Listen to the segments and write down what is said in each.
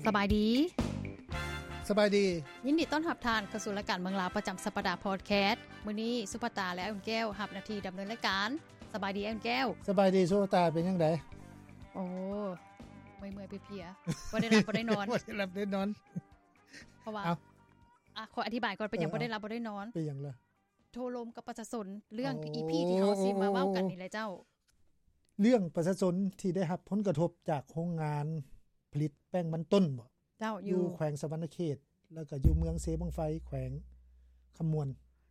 ສະບາຍດີ ສະບາຍດີ ຍິນດີຕ້ອນຮັບທ່ານເຂົ້າສູ່ລາຍການເມືອງລາວປະຈຳສັບປະດາພອດແຄສ. ມື້ນີ້ສຸພາຕາ ແລະ ອ້າຍອຸ່ນແກ້ວຮັບໜ້າທີ່ດຳເນີນລາຍການ. ສະບາຍດີອ້າຍອຸ່ນແກ້ວ. ສະບາຍດີສຸພາຕາ ເປັນຈັ່ງໃດ? ໂອ້ ເມື່ອຍໆເພຍໆ ບໍ່ໄດ້ຫຼັບບໍ່ໄດ້ນອນ ບໍ່ໄດ້ຫຼັບໄດ້ນອນ ເພາະວ່າ ເອົ້າ ອ່ະ ຂໍອະທິບາຍກ່ອນ ເປັນຫຍັງ ເອີ ບໍ່ໄດ້ຫຼັບບໍ່ໄດ້ນອນ. ເປັນຫຍັງລະ? ໂຕ້ລົມກັບປະຊາຊົນ ເລື່ອງ ໂອ້ ອີພີ ທີ່ເຮົາຊິມາເວົ້າກັນນີ້ແຫຼະເຈົ້າ. ເລື່ອງປະຊາຊົນທີ່ໄດ້ຮັບຜົນກະທົບຈາກໂຮງງານຜະລິດແປ້ງມັນຕົ້ນບໍ? ເຈົ້າ ຢູ່ ຢູ່ແຂວງສະຫວັນນະເຂດ ແລ້ວກໍຢູ່ເມືອງເຊບັ້ງໄຟ ແຂວງຄຳມ່ວນ.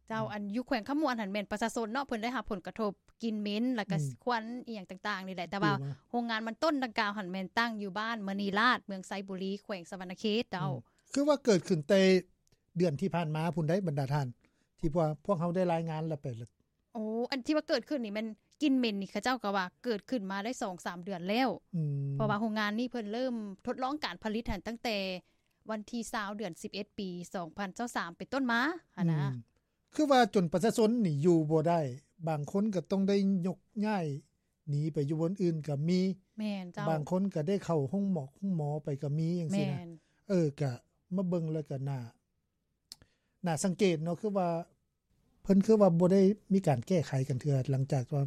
ເຈົ້າ ອືມ ອັນຢູ່ແຂວງຄຳມ່ວນຫັ້ນແມ່ນປະຊາຊົນເນາະ ເພິ່ນໄດ້ຮັບຜົນກະທົບ ກິ່ນເໝັນ ແລ້ວກໍ ອືມ ຄວັນອີ່ຫຍັງຕ່າງໆນີ້ແຫຼະ ແຕ່ວ່າ ມາ ໂຮງງານມັນຕົ້ນດັ່ງກ່າວຫັ້ນແມ່ນຕັ້ງຢູ່ບ້ານມະນີລາດ ເມືອງໄຊບູລີ ແຂວງສະຫວັນນະເຂດເຈົ້າ. ອືມ ຄືວ່າເກີດຂຶ້ນແຕ່ເດືອນທີ່ຜ່ານມາພຸ້ນໃດ໋ ບັນດາທ່ານ ທີ່ພວກ ພວກເຮົາໄດ້ລາຍງານແລ້ວໄປ ໂອ້ ອັນທີ່ວ່າເກີດຂຶ້ນນີ້ແມ່ນກິ່ນເໝັນນີ້ ເຂົາເຈົ້າກໍວ່າເກີດຂຶ້ນມາໄດ້ສອງສາມເດືອນແລ້ວ. ອືມ ເພາະວ່າໂຮງງານນີ້ເພິ່ນເລີ່ມທົດລອງການຜະລິດຫັ້ນຕັ້ງແຕ່ວັນທີຊາວ ເດືອນສິບເອັດ ປີສອງພັນຊາວສາມ ເປັນຕົ້ນມາຫັ້ນນະ. ອືມ ຄືວ່າຈົນປະຊາຊົນນີ້ຢູ່ບໍ່ໄດ້ ບາງຄົນກໍຕ້ອງໄດ້ຍົກຍ້າຍໜີໄປຢູ່ບ່ອນອື່ນກໍມີ. ແມ່ນເຈົ້າ. ບາງຄົນກໍໄດ້ເຂົ້າໂຮງໝໍ ໂຮງໝໍໄປກໍມີຈັ່ງຊີ້ນະ. ແມ່ນ. ເອີ ກະມາເບິ່ງແລ້ວກໍໜ້າ ໜ້າສັງເກດເນາະ ຄືວ່າ ເພິ່ນຄືວ່າບໍ່ໄດ້ມີການແກ້ໄຂກັນເທື່ອ ຫຼັງຈາກວ່າ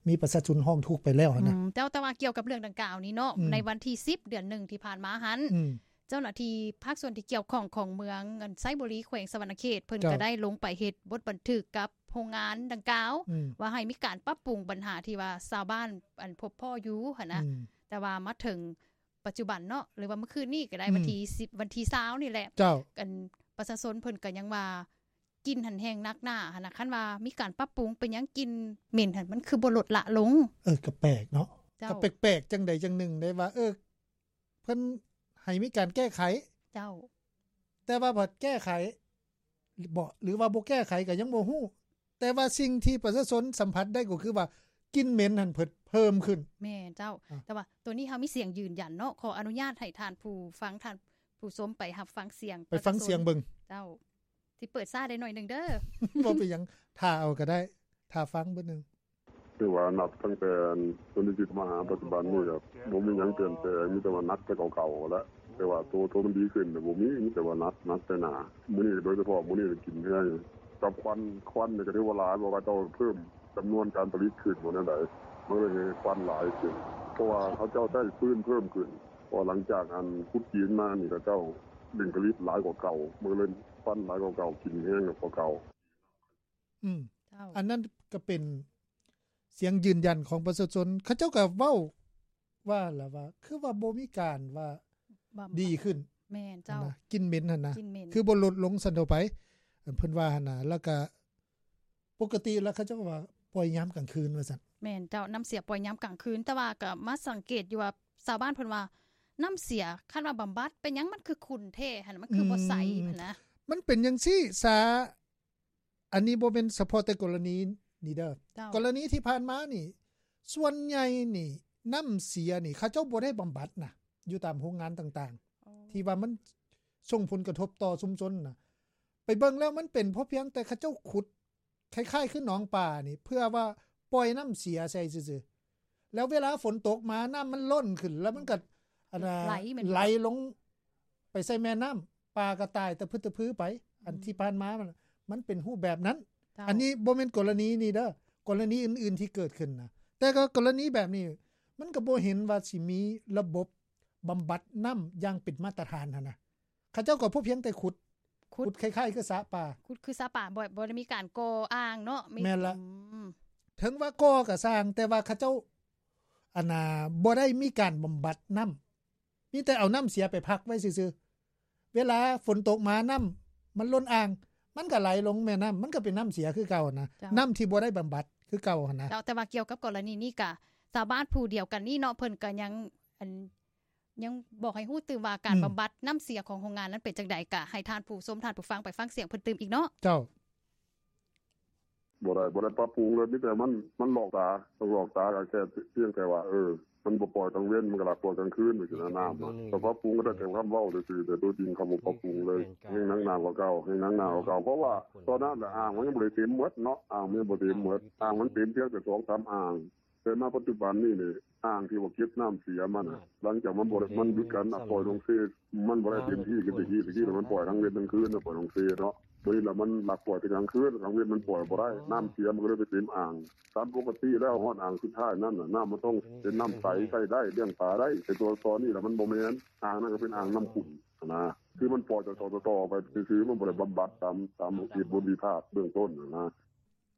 ມີປະຊາຊົນຮ້ອງທຸກໄປແລ້ວຫັ້ນນະ. ອືມ ແຕ່ ແຕ່ວ່າກ່ຽວກັບເລື່ອງດັ່ງກ່າວນີ້ເນາະ ອືມ ໃນວັນທີສິບ ເດືອນໜຶ່ງທີ່ຜ່ານມາຫັ້ນ ອືມ ເຈົ້າໜ້າທີ່ພາກສ່ວນທີ່ກ່ຽວຂ້ອງຂອງເມືອງໄຊບູລີ ແຂວງສະຫວັນນະເຂດ ເພິ່ນ ເຈົ້າ ກໍໄດ້ລົງໄປເຮັດບົດບັນທຶກກັບໂຮງງານດັ່ງກ່າວ ອືມ ວ່າໃຫ້ມີການປັບປຸງບັນຫາທີ່ວ່າຊາວບ້ານ ອັນ ພົບພໍ້ຢູ່ຫັ້ນນະ. ອືມ ແຕ່ວ່າມາເຖິງປັດຈຸບັນເນາະ ຫຼືວ່າມື້ຄືນນີ້ກໍໄດ້ ອືມ ວັນທີສິບ ວັນທີຊາວນີ້ແຫຼະ ເຈົ້າ ອັນ ປະຊາຊົນເພິ່ນກໍຍັງວ່າ ກິ່ນຫັ້ນແຮງໜັກໜາຫັ້ນນະ. ຄັນວ່າມີການປັບປຸງ ເປັນຫຍັງກິ່ນເໝັນຫັ້ນມັນຄືບໍ່ລົດລະລົງ? ເອີ ກໍແປກເນາະ. ເຈົ້າ. ກໍແປກໆ ຈັ່ງໃດຈັ່ງໜຶ່ງໄດ໋ວ່າ ເອີ ເພິ່ນໃຫ້ມີການແກ້ໄຂ. ເຈົ້າ. ແຕ່ວ່າພັດແກ້ໄຂບໍ ຫຼືວ່າບໍ່ແກ້ໄຂກໍຍັງບໍ່ຮູ້. ແຕ່ວ່າສິ່ງທີ່ປະຊາຊົນສຳຜັດໄດ້ກໍຄືວ່າ ກິ່ນເໝັນຫັ້ນເພິ່ນເພີ່ມຂຶ້ນ. ແມ່ນເຈົ້າ. ອາ ແຕ່ວ່າໂຕນີ້ເຮົາມີສຽງຢືນຢັນເນາະ. ຂໍອະນຸຍາດໃຫ້ທ່ານຜູ້ຟັງ ທ່ານຜູ້ຊົມໄປຮັບຟັງສຽງ ໄປຟັງສຽງເບິ່ງ. ເຈົ້າ. ຊິເປີດຊ້າໄດ້ໜ້ອຍໜຶ່ງເດີ. ບໍ່ເປັນຫຍັງ ຖ້າເອົາກໍໄດ້ ຖ້າຟັງເບິ່ງໜຶ່ງ. ຖືວ່ານັບຕັ້ງແຕ່ໂຕນີ້ທີ່ມາຫາປັດຈຸບັນນີ້ ກໍບໍ່ມີຫຍັງປ່ຽນແປງ ມີແຕ່ວ່າໜັກແຕ່ເກົ່າໆແຫຼະ. ແຕ່ວ່າໂຕ ໂຕມັນດີຂຶ້ນນະບໍ່ມີ ມີແຕ່ວ່າໜັກ ໜັກແຕ່ໜ້າ. ມື້ນີ້ໂດຍສະເພາະມື້ນີ້ກິນແຮງ ກັບຄວັນ ຄວັນນີ້ກໍຖືວ່າຫຼາຍ ເພາະວ່າເຂົາເຈົ້າເພີ່ມຈຳນວນການຜະລິດຂຶ້ນບໍ່ແນວໃດ ມັນເລີຍເຮັດຄວັນຫຼາຍຂຶ້ນ ເພາະວ່າເຂົາເຈົ້າໃຊ້ຟືນເພີ່ມຂຶ້ນ. ເພາະວ່າຫຼັງຈາກອັນຂຸດຈີນມານີ້ ເຂົາເຈົ້າເລັ່ງຜະລິດຫຼາຍກວ່າເກົ່າ ມັນເລີຍຄວັນຫຼາຍກວ່າເກົ່າ ກິນແຮງກວ່າເກົ່າ. ອືມ ເຈົ້າ ອັນນັ້ນກໍເປັນສຽງຢືນຢັນຂອງປະຊາຊົນ ເຂົາເຈົ້າກໍເວົ້າວ່າລະວ່າ ຄືວ່າບໍ່ມີການວ່າດີຂຶ້ນ. ແມ່ນເຈົ້າ. ກິ່ນເໝັນຫັ້ນນະ ກິ່ນເໝັນ ຄືບໍ່ລົດລົງຊັ້ນເທົ່າໄປ ເພິ່ນວ່າຫັ້ນນະ. ແລ້ວກໍປົກກະຕິແລ້ວເຂົາເຈົ້າກໍວ່າປ່ອຍຍາມກາງຄືນວ່າຊັ້ນ. ແມ່ນເຈົ້າ. ນ້ຳເສຍປ່ອຍຍາມກາງຄືນ ແຕ່ວ່າກໍມາສັງເກດຢູ່ວ່າຊາວບ້ານເພິ່ນວ່າ ນ້ຳເສຍຄັນວ່າບຳບັດເປັນຫຍັງມັນຄືຂຸ່ນແທ້ຫັ້ນ ມັນຄືບໍ່ໃສຫັ້ນນະ. ອືມ ມັນເປັນຈັ່ງຊີ້ຊາ ອັນນີ້ບໍ່ແມ່ນສະເພາະແຕ່ກໍລະນີນີ້ເດີ. ເຈົ້າ. ກໍລະນີທີ່ຜ່ານມານີ້ ສ່ວນໃຫຍ່ນີ້ ນ້ຳເສຍນີ້ ເຂົາເຈົ້າບໍ່ໄດ້ບຳບັດນະ ຢູ່ຕາມໂຮງງານຕ່າງໆ ໂອ້ ທີ່ວ່າມັນສົ່ງຜົນກະທົບຕໍ່ຊຸມຊົນນະ. ໄປເບິ່ງແລ້ວມັນເປັນເພາະພຽງແຕ່ເຂົາເຈົ້າຂຸດ ຄ້າຍໆຄືໜອງປານີ້ ເພື່ອວ່າປ່ອຍນ້ຳເສຍໃສ່ຊື່ໆ ແລ້ວເວລາຝົນຕົກມາ ນ້ຳມັນລົ້ນຂຶ້ນ ແລ້ວມັນກໍ ອັນນ່າ ໄຫຼແມ່ນບໍ່? ໄຫຼລົງໄປໃສ່ແມ່ນ້ຳ ປາກໍຕາຍຕະພຶດຕະພືໄປ. ອືມ ອັນທີ່ຜ່ານມາມັນ ມັນເປັນຮູບແບບນັ້ນ. ເຈົ້າ. ອັນນີ້ບໍ່ແມ່ນກໍລະນີນີ້ເດີ ກໍລະນີອື່ນໆທີ່ເກີດຂຶ້ນນະ. ແຕ່ກໍກໍລະນີແບບນີ້ ມັນກໍບໍ່ເຫັນວ່າຊິມີລະບົບບຳບັດນ້ຳຢ່າງເປັນມາດຕະຖານຫັ້ນນະ. ເຂົາເຈົ້າກໍພໍພຽງແຕ່ຂຸດ ຂຸດ ຂຸດຄ້າຍໆຄືສະປາ ຂຸດຄືສະປາ ບໍ່ ບໍ່ໄດ້ມີການກໍ່ອ່າງເນາະ. ແມ່ນລະ. ອືມ ເຖິງວ່າກໍ່ກໍຊ່າງ ແຕ່ວ່າເຂົາເຈົ້າ ອັນນ່າ ບໍ່ໄດ້ມີການບຳບັດນ້ຳ ມີແຕ່ເອົານ້ຳເສຍໄປພັກໄວ້ຊື່ໆ. ເວລາຝົນຕົກມາ ນ້ຳມັນລົ້ນອ່າງ ມັນກໍໄຫຼລົງແມ່ນ້ຳ ມັນກໍເປັນນ້ຳເສຍຄືເກົ່ານະ. ເຈົ້າ. ນ້ຳທີ່ບໍ່ໄດ້ບຳບັດຄືເກົ່າຫັ້ນນະ. ເຈົ້າ. ແຕ່ວ່າກ່ຽວກັບກໍລະນີນີ້ກະ ຊາວບ້ານຜູ້ດຽວກັນນີ້ເນາະ ເພິ່ນກໍຍັງ ອັນ ຍັງບອກໃຫ້ຮູ້ຕື່ມວ່າການ ອືມ ບຳບັດນ້ຳເສຍຂອງໂຮງງານນັ້ນເປັນຈັ່ງໃດ ກະໃຫ້ທ່ານຜູ້ຊົມ ທ່ານຜູ້ຟັງໄປຟັງສຽງເພິ່ນຕື່ມອີກເນາະ. ເຈົ້າ. ບໍ່ໄດ້ ບໍ່ໄດ້ປັບປຸງເລີຍ ມີແຕ່ມັນ ມັນຫຼອກຕາ ຕ້ອງຫຼອກຕາ ກໍແຄ່ພຽງແຕ່ວ່າ ເອີ ມັນບໍ່ປ່ອຍກາງເວັນ ມັນກໍລັກປ່ອຍກາງຄືນ ຈັ່ງຊີ້ນະ. ນ້ຳ ກໍປັບປຸງກໍໄດ້ແຕ່ຄຳເວົ້າຊື່ໆ ແຕ່ໂຕຈິງເຂົາບໍ່ປັບປຸງເລີຍ ແຮງໜັກໜາກວ່າເກົ່າ ແຮງໜັກໜາກວ່າເກົ່າ. ເພາະວ່າຕອນນັ້ນອ່າງມັນຍັງບໍ່ໄດ້ເຕັມໝົດເນາະ ອ່າງມັນຍັງບໍ່ເຕັມໝົດ ອ່າງມັນເຕັມພຽງແຕ່ສອງສາມອ່າງ. ແຕ່ມາປັດຈຸບັນນີ້ນີ້ ອ່າງທີ່ວ່າເກັບນ້ຳເສຍມັນນະ ຫຼັງຈາກມັນບໍ່ໄດ້ ມັນຢຸດການ ອ່າ ປ່ອຍລົງເຊ ມັນບໍ່ໄດ້ເຕັມທີ່ຄືແຕ່ກີ້. ແຕ່ກີ້ມັນປ່ອຍທັງເວັນທັງຄືນນະ ປ່ອຍລົງເຊເນາະ. ບາດນີ້ລະມັນລັກປ່ອຍແຕ່ກາງຄືນ ກາງເວັນມັນປ່ອຍບໍ່ໄດ້ ນ້ຳເສຍມັນກໍເລີຍໄປເຕັມອ່າງ. ຕາມປົກກະຕິແລ້ວຮອດອ່າງສຸດທ້າຍນັ້ນນະ ນ້ຳມັນຕ້ອງເປັນນ້ຳໃສ ໃຊ້ໄດ້ ລ້ຽງປາໄດ້. ແຕ່ຕົວ ຕອນນີ້ລະມັນບໍ່ແມ່ນ ອ່າງນັ້ນກໍເປັນອ່າງນ້ຳຂຸ່ນຫັ້ນນະ ຄືມັນປ່ອຍຕໍ່ໆໄປຊື່ໆ ມັນບໍ່ໄດ້ບຳບັດຕາມ ຕາມເຫດຜົນທີ່ພາດເບື້ອງຕົ້ນຫັ້ນນະ.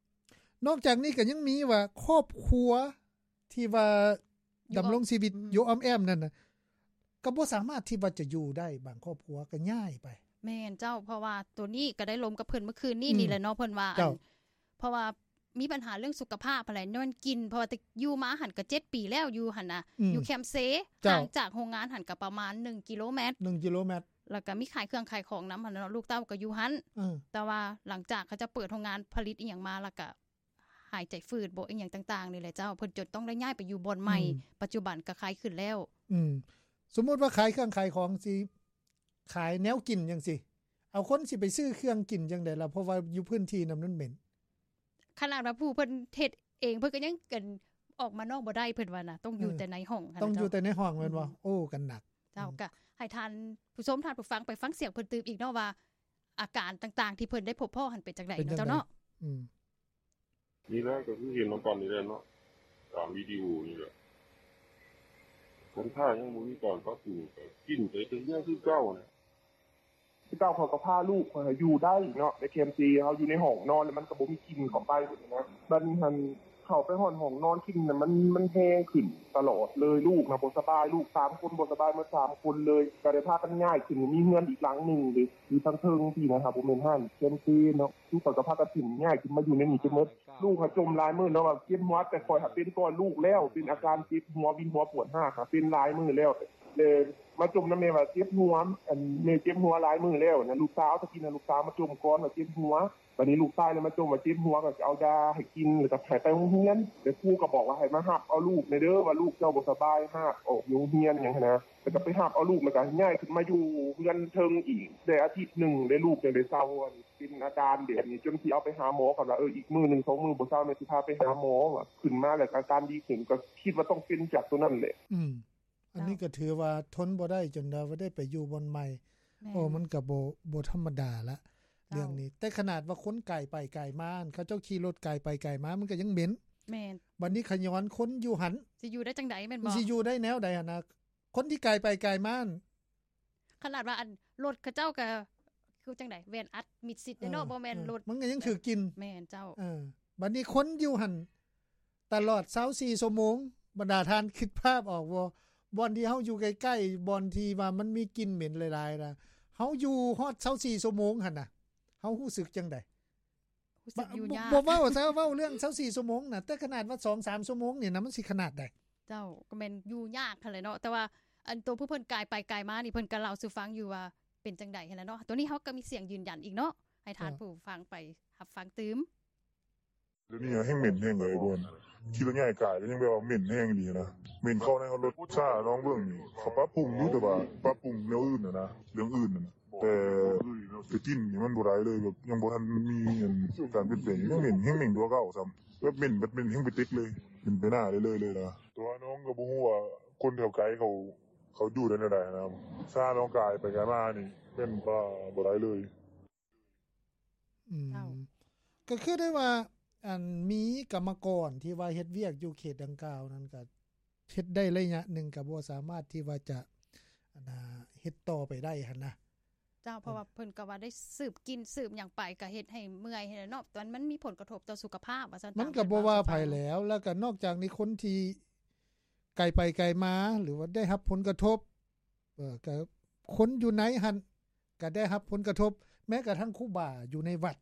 ນອກຈາກນີ້ກໍຍັງມີວ່າ ຄອບຄົວທີ່ວ່າດຳລົງຊີວິດຢູ່ອ້ອມແອ້ມນັ້ນນະ ກໍບໍ່ສາມາດທີ່ວ່າຈະຢູ່ໄດ້ ບາງຄອບຄົວກໍຍ້າຍໄປ. ແມ່ນເຈົ້າ ເພາະວ່າໂຕນີ້ກໍໄດ້ລົມກັບເພິ່ນມື້ຄືນນີ້ ອືມ ນີ້ແຫຼະເນາະ ເພິ່ນວ່າ ເຈົ້າ ອັນ ເພາະວ່າມີບັນຫາເລື່ອງສຸຂະພາບຫັ້ນແຫຼະ ຍ້ອນກິ່ນ ເພາະວ່າແຕ່ຢູ່ມາຫັ້ນກໍເຈັດປີແລ້ວ ຢູ່ຫັ້ນນະ ອືມ ຢູ່ແຄມເຊ ເຈົ້າ ຫ່າງຈາກໂຮງງານຫັ້ນກໍປະມານໜຶ່ງກິໂລແມັດ ໜຶ່ງກິໂລແມັດ ແລ້ວກໍມີຂາຍເຄື່ອງຂາຍຂອງນຳຫັ້ນເນາະ ລູກເຕົ້າກໍຢູ່ຫັ້ນ ເອີ ແຕ່ວ່າຫຼັງຈາກເຂົາເຈົ້າເປີດໂຮງງານຜະລິດອີ່ຫຍັງມາ ແລ້ວກໍ ຫາຍໃຈຝືດບໍ ອີ່ຫຍັງຕ່າງໆນີ້ແຫຼະເຈົ້າ ເພິ່ນຈົນຕ້ອງໄດ້ຍ້າຍໄປຢູ່ບ່ອນໃໝ່ ອືມ ປັດຈຸບັນກໍຂາຍຂຶ້ນແລ້ວ. ອືມ ສົມມຸດວ່າຂາຍເຄື່ອງຂາຍຂອງ ຊິຂາຍແນວກິນຈັ່ງຊີ້ ເອົາ ຄົນຊິໄປຊື້ເຄື່ອງກິນຈັ່ງໃດລະ ເພາະວ່າຢູ່ພື້ນທີ່ນັ້ນມັນເໝັນ. ຂະໜາດວ່າຜູ້ເພິ່ນເຮັດເອງ ເພິ່ນກໍຍັງ ອັນ ອອກມານອກບໍ່ໄດ້ ເພິ່ນວ່ານະ ຕ້ອງຢູ່ ເອີ ແຕ່ໃນຫ້ອງ ຕ້ອງຢູ່ແຕ່ໃນຫ້ອງແມ່ນບໍ່? ອືມ ໂອ້ ກໍໜັກ. ເຈົ້າ ອືມ ກໍໃຫ້ທ່ານຜູ້ຊົມ ທ່ານຜູ້ຟັງ ໄປຟັງສຽງເພິ່ນຕື່ມອີກເນາະວ່າ ອາການຕ່າງໆທີ່ເພິ່ນໄດ້ພົບພໍ້ຫັ້ນເປັນຈັ່ງໃດ ເປັນຈັ່ງໃດ ນະເຈົ້າເນາະ. ອືມ ນີ້ແຫຼະກໍຄືເຫັນນຳກັນນີ້ແຫຼະເນາະ ຕາມວິດີໂອນີ້ແຫຼະ ຄົນຖ້າຍັງບໍ່ມີການປັບປຸງ ກໍກິນໄປເລື້ອຍໆຄືເກົ່ານະ. ຄືເກົ່າ ເຂົາກໍພາລູກຂ້ອຍຢູ່ໄດ້ເນາະ ໃນແຄມເຊ ເຮົາຢູ່ໃນຫ້ອງນອນ ແລ້ວມັນກໍບໍ່ມີກິ່ນເຂົ້າໄປຫັ້ນນະ. ບັດນີ້ຫັ້ນ ເຂົ້າໄປຮອດຫ້ອງນອນ ກິ່ນນະ ມັນ ມັນແຮງຂຶ້ນຕະຫຼອດເລີຍ. ລູກນະບໍ່ສະບາຍ ລູກສາມຄົນບໍ່ສະບາຍໝົດສາມຄົນເລີຍ ກໍໄດ້ພາກັນຍ້າຍຂຶ້ນ ມີເຮືອນອີກຫຼັງໜຶ່ງເດ້ ຢູ່ທາງເທິງພີ້ນະ ຖ້າບໍ່ແມ່ນຮ້ານແຄມເຊເນາະ ຄືເຂົາກໍພາກັນຂຶ້ນ ຍ້າຍຂຶ້ນມາຢູ່ໃນນີ້ເບິດ. ລູກຫາຈົມຫຼາຍມື້ເນາະວ່າເຈັບຫົວ ແຕ່ຂ້ອຍຫາເປັນກ່ອນລູກແລ້ວ ເປັນອາການເຈັບຫົວ ວິນຫົວ ປວດຮາກ ຫາເປັນຫຼາຍມື້ແລ້ວ ແລ້ວມາຈົມນຳແມ່ວ່າເຈັບຫົວ ອັນ ແມ່ເຈັບຫົວຫຼາຍມື້ແລ້ວນະ. ລູກສາວ ຕະກີ້ນະ ລູກສາວມາຈົມກ່ອນວ່າເຈັບຫົວ ບັດນີ້ລູກຊາຍເລີຍມາຈົ່ມວ່າເຈັບຫົວ ກໍເອົາຢາໃຫ້ກິນ ແລ້ວກໍໃຫ້ໄປໂຮງຮຽນ ແລ້ວຄູກໍບອກວ່າໃຫ້ມາຮັບເອົາລູກແດ່ເດີ ວ່າລູກເຈົ້າບໍ່ສະບາຍ ຮາກອອກຢູ່ໂຮງຮຽນຫຍັງຫັ້ນນະ. ແລ້ວກໍໄປຮັບເອົາລູກ ແລ້ວກໍຍ້າຍຂຶ້ນມາຢູ່ເຮືອນເທິງອີກ ໄດ້ອາທິດໜຶ່ງ ແລ້ວລູກຈັ່ງໄດ້ເຊົາ ອັນ ເປັນອາການແບບນີ້ ຈົນຊິເອົາໄປຫາໝໍ ກໍວ່າ ເອີ ອີກມື້ໜຶ່ງສອງມື້ບໍ່ເຊົາ ແມ່ຊິພາໄປຫາໝໍ ວ່າຂຶ້ນມາແລ້ວກໍອາການດີຂຶ້ນ ກໍຄິດວ່າຕ້ອງເປັນຈາກໂຕນັ້ນແຫຼະ. ອືມ ອັນນີ້ກໍຖືວ່າທົນບໍ່ໄດ້ ຈົນວ່າໄດ້ໄປຢູ່ບ່ອນໃໝ່. ແມ່ນ ໂອ້ ມັນກໍບໍ່ ບໍ່ທຳມະດາລະ ເຈົ້າ ເລື່ອງນີ້. ແຕ່ຂະໜາດວ່າຄົນກາຍໄປກາຍມາ ເຂົາເຈົ້າຂີ່ລົດກາຍໄປກາຍມາ ມັນກໍຍັງເໝັນ. ແມ່ນ ບັດນີ້ຂະຍ້ອນຄົນຢູ່ຫັ້ນ ຊິຢູ່ໄດ້ຈັ່ງໃດແມ່ນບໍ່? ມັນຊິຢູ່ໄດ້ແນວໃດຫັ້ນນະ? ຄົນທີ່ກາຍໄປກາຍມາ ຂະໜາດວ່າ ອັນ ລົດເຂົາເຈົ້າກໍຄືຈັ່ງໃດ ແວ່ນອັດມິດຊິດເດ້ເນາະ ເອີ ບໍ່ແມ່ນ ເອີ ລົດ ມັນກໍຍັງຖືກກິ່ນ. ແມ່ນເຈົ້າ. ເອີ ບັດນີ້ຄົນຢູ່ຫັ້ນຕະຫຼອດຊາວສີ່ຊົ່ວໂມງ ບັນດາທ່ານຄິດພາບອອກບໍ່? ບ່ອນທີ່ເຮົາຢູ່ໃກ້ໆ ບ່ອນທີ່ວ່າມັນມີກິ່ນເໝັນຫຼາຍໆນະ ເຮົາຢູ່ຮອດຊາວສີ່ຊົ່ວໂມງຫັ້ນນະ ເຮົາຮູ້ສຶກຈັ່ງໃດ? ຮູ້ສຶກຢູ່ຍາກ ບໍ່ ບໍ່ເວົ້າຊະ ເວົ້າເລື່ອງຊາວສີ່ຊົ່ວໂມງນະ ແຕ່ຂະໜາດວ່າສອງສາມຊົ່ວໂມງນີ້ນະ ມັນຊິຂະໜາດໃດ? ເຈົ້າ ກໍແມ່ນຢູ່ຍາກຫັ້ນແຫຼະເນາະ ແຕ່ວ່າອັນໂຕຜູ້ເພິ່ນກາຍໄປກາຍມານີ້ ເພິ່ນກໍເລົ່າສູ່ຟັງຢູ່ວ່າເປັນຈັ່ງໃດຫັ້ນນະເນາະ. ໂຕນີ້ເຮົາກໍມີສຽງຢືນຢັນອີກເນາະ ໃຫ້ທ່ານ ເອີ ຜູ້ຟັງໄປຮັບຟັງຕື່ມ. ດຽວນີ້ແຮ່ງເໝັນແຮ່ງເລີຍ ບ່ອນຂີ່ລົດໃຫຍ່ກາຍກໍຍັງແບບວ່າເໝັນແຮ່ງອີ່ຫຼີນະ ເໝັນເຂົ້າໃນຮອດລົດ. ຖ້າລອງເບິ່ງ ເຂົາປັບປຸງຢູ່ ແຕ່ວ່າປັບປຸງແນວອື່ນຫັ້ນນະ ເລື່ອງອື່ນຫັ້ນນະ ແຕ່ ແຕ່ກິ່ນນີ້ມັນບໍ່ໄດ້ເລີຍ ແບບຍັງບໍ່ທັນມີອັນການປ່ຽນແປງ ຍັງເໝັນ ແຮ່ງເໝັນກວ່າເກົ່າຊ້ຳ ແບບເໝັນ ແບບເໝັນແຮ່ງໄປຕິກເລີຍ ເປັນໄປໜ້າເລື້ອຍໆເລີຍນະ. ແຕ່ວ່ານ້ອງກໍບໍ່ຮູ້ວ່າຄົນແຖວໄກເຂົາ ເຂົາຢູ່ໄດ້ແນວໃດນະ ຖ້ານ້ອງກາຍໄປກາຍມານີ້ແມ່ນວ່າບໍ່ໄດ້ເລີຍ. ອືມ ເຈົ້າ ກໍຄືໄດ້ວ່າ ອັນ ມີກຳມະກອນທີ່ວ່າເຮັດວຽກຢູ່ເຂດດັ່ງກ່າວນັ້ນ ກໍເຮັດໄດ້ໄລຍະໜຶ່ງ ກໍບໍ່ສາມາດທີ່ວ່າຈະ ອັນ ເຮັດຕໍ່ໄປໄດ້ຫັ້ນນະ. ເຈົ້າ ເພາະວ່າເພິ່ນກໍວ່າໄດ້ສືບກິ່ນສືບຫຍັງໄປ ກໍເຮັດໃຫ້ເມື່ອຍຫັ້ນແຫຼະເນາະ ແຕ່ມັນມີຜົນກະທົບຕໍ່ສຸຂະພາບວ່າຊັ້ນ. ມັນກໍບໍ່ວ່າໃຜແລ້ວ ແລ້ວກໍນອກຈາກນີ້ ຄົນທີ່ໄກໄປໄກມາ ຫຼືວ່າໄດ້ຮັບຜົນກະທົບ ເອີ ກໍຄົນຢູ່ໃນຫັ້ນກໍໄດ້ຮັບຜົນກະທົບ ແມ້ກະທັ້ງຄູບາຢູ່ໃນວັດ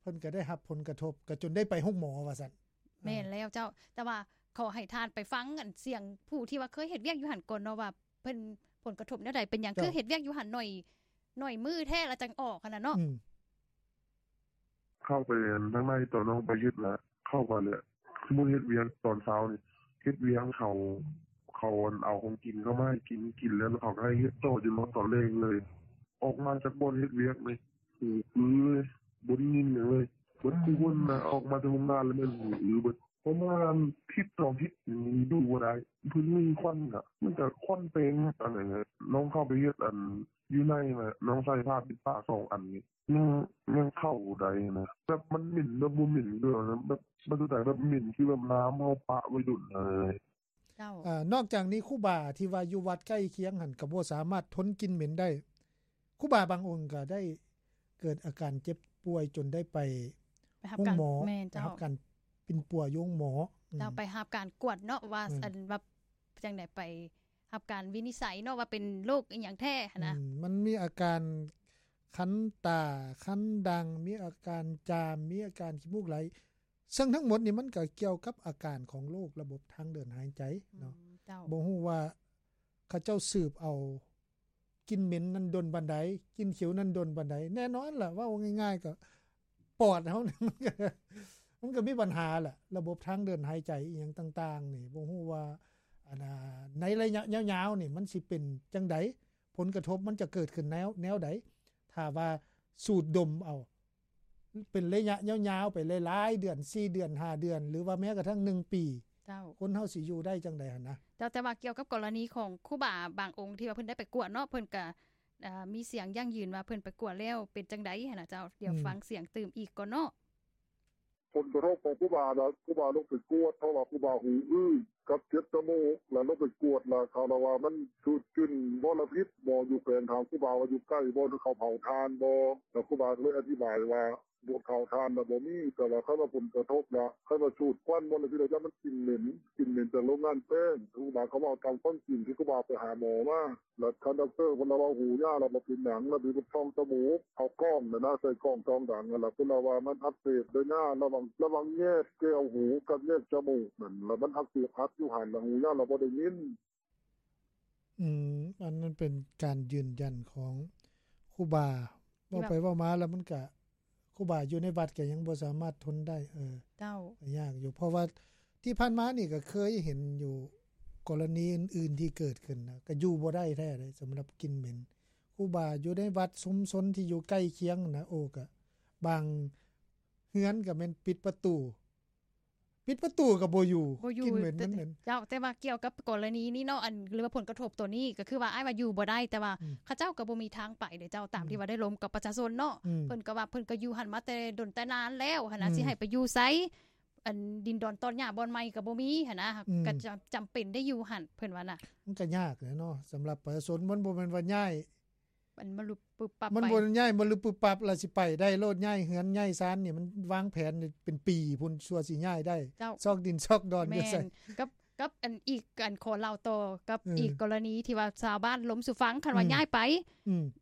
ເພິ່ນກໍໄດ້ຮັບຜົນກະທົບ ກໍຈົນໄດ້ໄປໂຮງໝໍວ່າຊັ້ນ. ແມ່ນແລ້ວເຈົ້າ ແຕ່ວ່າຂໍໃຫ້ທ່ານໄປຟັງອັນສຽງຜູ້ທີ່ວ່າເຄີຍເຮັດວຽກຢູ່ຫັ້ນກ່ອນເນາະ ວ່າເພິ່ນຜົນກະທົບແນວໃດ ເປັນຫຍັງ ເຈົ້າ ຄືເຮັດວຽກຢູ່ຫັ້ນໜ້ອຍ ໜ້ອຍມື້ແທ້ລະຈັ່ງອອກຫັ້ນນະເນາະ. ອືມ ເຂົ້າໄປທາງໃນ ຕອນນ້ອງໄປເຮັດລະ ເຂົ້າໄປແລ້ວ ສົມມຸດເຮັດວຽກຕອນເຊົ້ານີ້ ເຮັດວຽກເຂົາ ເຂົາ ອັນ ເອົາຂອງກິນເຂົ້າມາໃຫ້ກິນ ກິນແລ້ວເຂົາກໍໃຫ້ເຮັດຕໍ່ຈົນຮອດຕອນແລງເລີຍ. ອອກມາຈາກບ່ອນເຮັດວຽກນີ້ ຫູອື້ເລີຍ ບໍ່ໄດ້ຍິນຫຍັງເລີຍ ເບິດຄູ່ຄົນນະ. ອອກມາແຕ່ໂຮງງານແລ້ວແມ່ນຫູອື້ເບິດ. ປະມານທິດສອງທິດນີ້ຢູ່ບໍ່ໄດ້ ເພິ່ນມີຄວັນນະ ມັນກະຄວັນເຕັມອັນນັ້ນແຫຼະ ນ້ອງເຂົ້າໄປເຮັດອັນຢູ່ໃນນະ ນ້ອງໃສ່ຜ້າປິດປາກສອງອັນນີ້ ຍັງ ຍັງເຂົ້າໄດ້ນະ ແບບມັນເໝັນແບບບໍ່ເໝັນເລີຍນະ ແບບມັນຄືແບບເໝັນຄືແບບນ້ຳເຮົາປະໄວ້ດົນນະ. ເຈົ້າ ອາ ນອກຈາກນີ້ຄູບາທີ່ວ່າຢູ່ວັດໃກ້ຄຽງຫັ້ນກໍບໍ່ສາມາດທົນກິ່ນເໝັນໄດ້ ຄູບາບາງອົງກໍໄດ້ເກີດອາການເຈັບປ່ວຍຈົນໄດ້ໄປ ໄປຮັບການ ໂຮງໝໍ ແມ່ນເຈົ້າ ໄປຮັບການປິ່ນປົວຢູ່ໂຮງໝໍ ເຈົ້າ ອືມ ໄປຮັບການກວດເນາະວ່າ ແມ່ນ ອັນວ່າຈັ່ງໃດ ໄປຮັບການວິນິດໄສເນາະວ່າເປັນໂລກອີ່ຫຍັງແທ້ຫັ້ນນະ ອືມ ມັນມີອາການຄັນຕາ ຄັນດັງ ມີອາການຈາມ ມີອາການຂີ້ມູກໄຫຼ ເຊິ່ງທັງໝົດນີ້ມັນກໍກ່ຽວກັບອາການຂອງໂລກລະບົບທາງເດີນຫາຍໃຈເນາະ ອືມ ເຈົ້າ ບໍ່ຮູ້ວ່າເຂົາເຈົ້າສືບເອົາກິ່ນເໝັນນັ້ນດົນປານໃດ ກິ່ນຂິວນັ້ນດົນປານໃດ ແນ່ນອນລະ ເວົ້າງ່າຍໆ ກໍປອດເຮົາ ມັນກໍ ມັນກໍມີບັນຫາລະ ລະບົບທາງເດີນຫາຍໃຈອີ່ຫຍັງຕ່າງໆນີ້ ບໍ່ຮູ້ວ່າ ອັນ ໃນໄລຍະຍາວໆນີ້ມັນຊິເປັນຈັ່ງໃດ ຜົນກະທົບມັນຈະເກີດຂຶ້ນແນວ ແນວໃດ ຖ້າວ່າສູດດົມເອົາ ເປັນໄລຍະຍາວໆໄປຫຼາຍໆເດືອນ ສີ່ເດືອນ ຫ້າເດືອນ ຫຼືວ່າແມ້ກະທັ່ງໜຶ່ງປີ ເຈົ້າ ຄົນເຮົາຊິຢູ່ໄດ້ຈັ່ງໃດຫັ້ນນະ ເຈົ້າ ແຕ່ວ່າກ່ຽວກັບກໍລະນີຂອງຄູບາບາງອົງທີ່ວ່າເພິ່ນໄດ້ໄປກວດເນາະ ເພິ່ນກະ ເອີ ມີສຽງຢັ້ງຢືນວ່າເພິ່ນໄປກວດແລ້ວເປັນຈັ່ງໃດຫັ້ນນະເຈົ້າ ດຽວ ອືມ ຟັງສຽງຕື່ມອີກກ່ອນເນາະ. ຜົນກະທົບຂອງຄູບານະ ຄູບາລົງໄປກວດ ເພາະວ່າຄູບາຫູອື້ ກັບເຈັບຈະມູກ ລະລົງໄປກວດ ລະເຂົາລະວ່າມັນສູດກິ່ນມໍລະພິດ ໝໍຢູ່ແຂວງຖາມຄູບາວ່າຢູ່ໃກ້ບໍ່ ເຂົາເຜົາຖ່ານບໍ່ ລະຄູບາກໍເລີຍອະທິບາຍວ່າ ບໍ່ເຜົາຖ່ານລະບໍ່ມີ ແຕ່ວ່າຄັນວ່າຜົນກະທົບລະ ຄັນວ່າສູດຄວັນມໍລະພິດລະ ຢ້ານມັນກິ່ນເໝັນ ກິ່ນເໝັນຈາກໂລງງານແປ້ງ ຄູບາກໍເວົ້າຕາມຄວາມຈິງທີ່ຄູບາໄປຫາໝໍມາ. ລະທ່ານດັອກເຕີເພິ່ນລະເວົ້າຫູຍ່າລະບໍ່ເປັນຫຍັງ ລະມີເພິ່ນສ່ອງຈະມູກ ເອົາກ້ອງຫັ້ນນະ ໃສ່ກ້ອງສ່ອງດັງຫັ້ນລະ ເພິ່ນລະວ່າມັນອັກເສບໄລຍະລະຫວ່າງ ລະຫວ່າງແຍກແກ້ວຫູກັບແຍກຈະມູກນັ້ນ ລະມັນອັກເສບອັດຢູ່ຫັ້ນ ລະຫູຍ່າລະບໍ່ໄດ້ຍິນ. ອືມ ອັນນັ້ນເປັນການຢືນຢັນຂອງຄູບາ ທີ່ວ່າ ເວົ້າໄປເວົ້າມາລະມັນກະ ຄູບາຢູ່ໃນວັດກໍຍັງບໍ່ສາມາດທົນໄດ້ ເອີ ເຈົ້າ ກໍຍາກຢູ່ ເພາະວ່າທີ່ຜ່ານມານີ້ກໍເຄີຍເຫັນຢູ່ ກໍລະນີອື່ນໆທີ່ເກີດຂຶ້ນນະ ກໍຢູ່ບໍ່ໄດ້ແທ້ເດ້ ສຳລັບກິ່ນເໝັນ ຄູບາຢູ່ໃນວັດຊຸມຊົນທີ່ຢູ່ໃກ້ຄຽງນະ ໂອ້ ກໍບາງເຮືອນກໍແມ່ນປິດປະຕູ ປິດປະຕູກໍບໍ່ຢູ່ ບໍ່ຢູ່ ກິ່ນເໝັນ ແຕ່ ມັນເໝັນ ເຈົ້າ ແຕ່ວ່າກ່ຽວກັບກໍລະນີນີ້ເນາະ ອັນ ຫຼືວ່າຜົນກະທົບໂຕນີ້ ກໍຄືວ່າອ້າຍວ່າຢູ່ບໍ່ໄດ້ ແຕ່ວ່າ ອືມ ເຂົາເຈົ້າກໍບໍ່ມີທາງໄປເດ້ເຈົ້າ ຕາມ ອືມ ທີ່ວ່າໄດ້ລົມກັບປະຊາຊົນເນາະ ອືມ ເພິ່ນກໍວ່າເພິ່ນກໍຢູ່ຫັ້ນມາແຕ່ດົນແຕ່ນານແລ້ວຫັ້ນນະ ອືມ ຊິໃຫ້ໄປຢູ່ໃສ ອັນ ດິນດອນຕອນຫຍ້າບ່ອນໃໝ່ກໍບໍ່ມີຫັ້ນນະ ອືມ ກໍຈຳ ຈຳເປັນໄດ້ຢູ່ຫັ້ນ ເພິ່ນວ່ານະ ມັນກໍຍາກແຫຼະເນາະ ສຳລັບປະຊາຊົນ ມັນບໍ່ແມ່ນວ່າຍ້າຍ ມັນມາຫຼຸບປຶບປັບ ມັນ ໄປ ບໍ່ໄດ້ຍ້າຍມາລຶບປຶບປັບ ລະຊິໄປໄດ້ໂລດ ຍ້າຍເຮືອນຍ້າຍຊານນີ້ ມັນວາງແຜນເປັນປີພຸ້ນ ຊົ່ວຊິຍ້າຍໄດ້ ເຈົ້າ ຊອກດິນຊອກດອນ ແມ່ນ ຢູ່ໃສ ກັບ ກັບອັນອີກ ອັນ ຂໍເລົ່າຕໍ່ກັບ ເອີ ອີກກໍລະນີທີ່ວ່າຊາວບ້ານລົມສູ່ຟັງ ຄັນວ່າ ອືມ ຍ້າຍໄປ ອືມ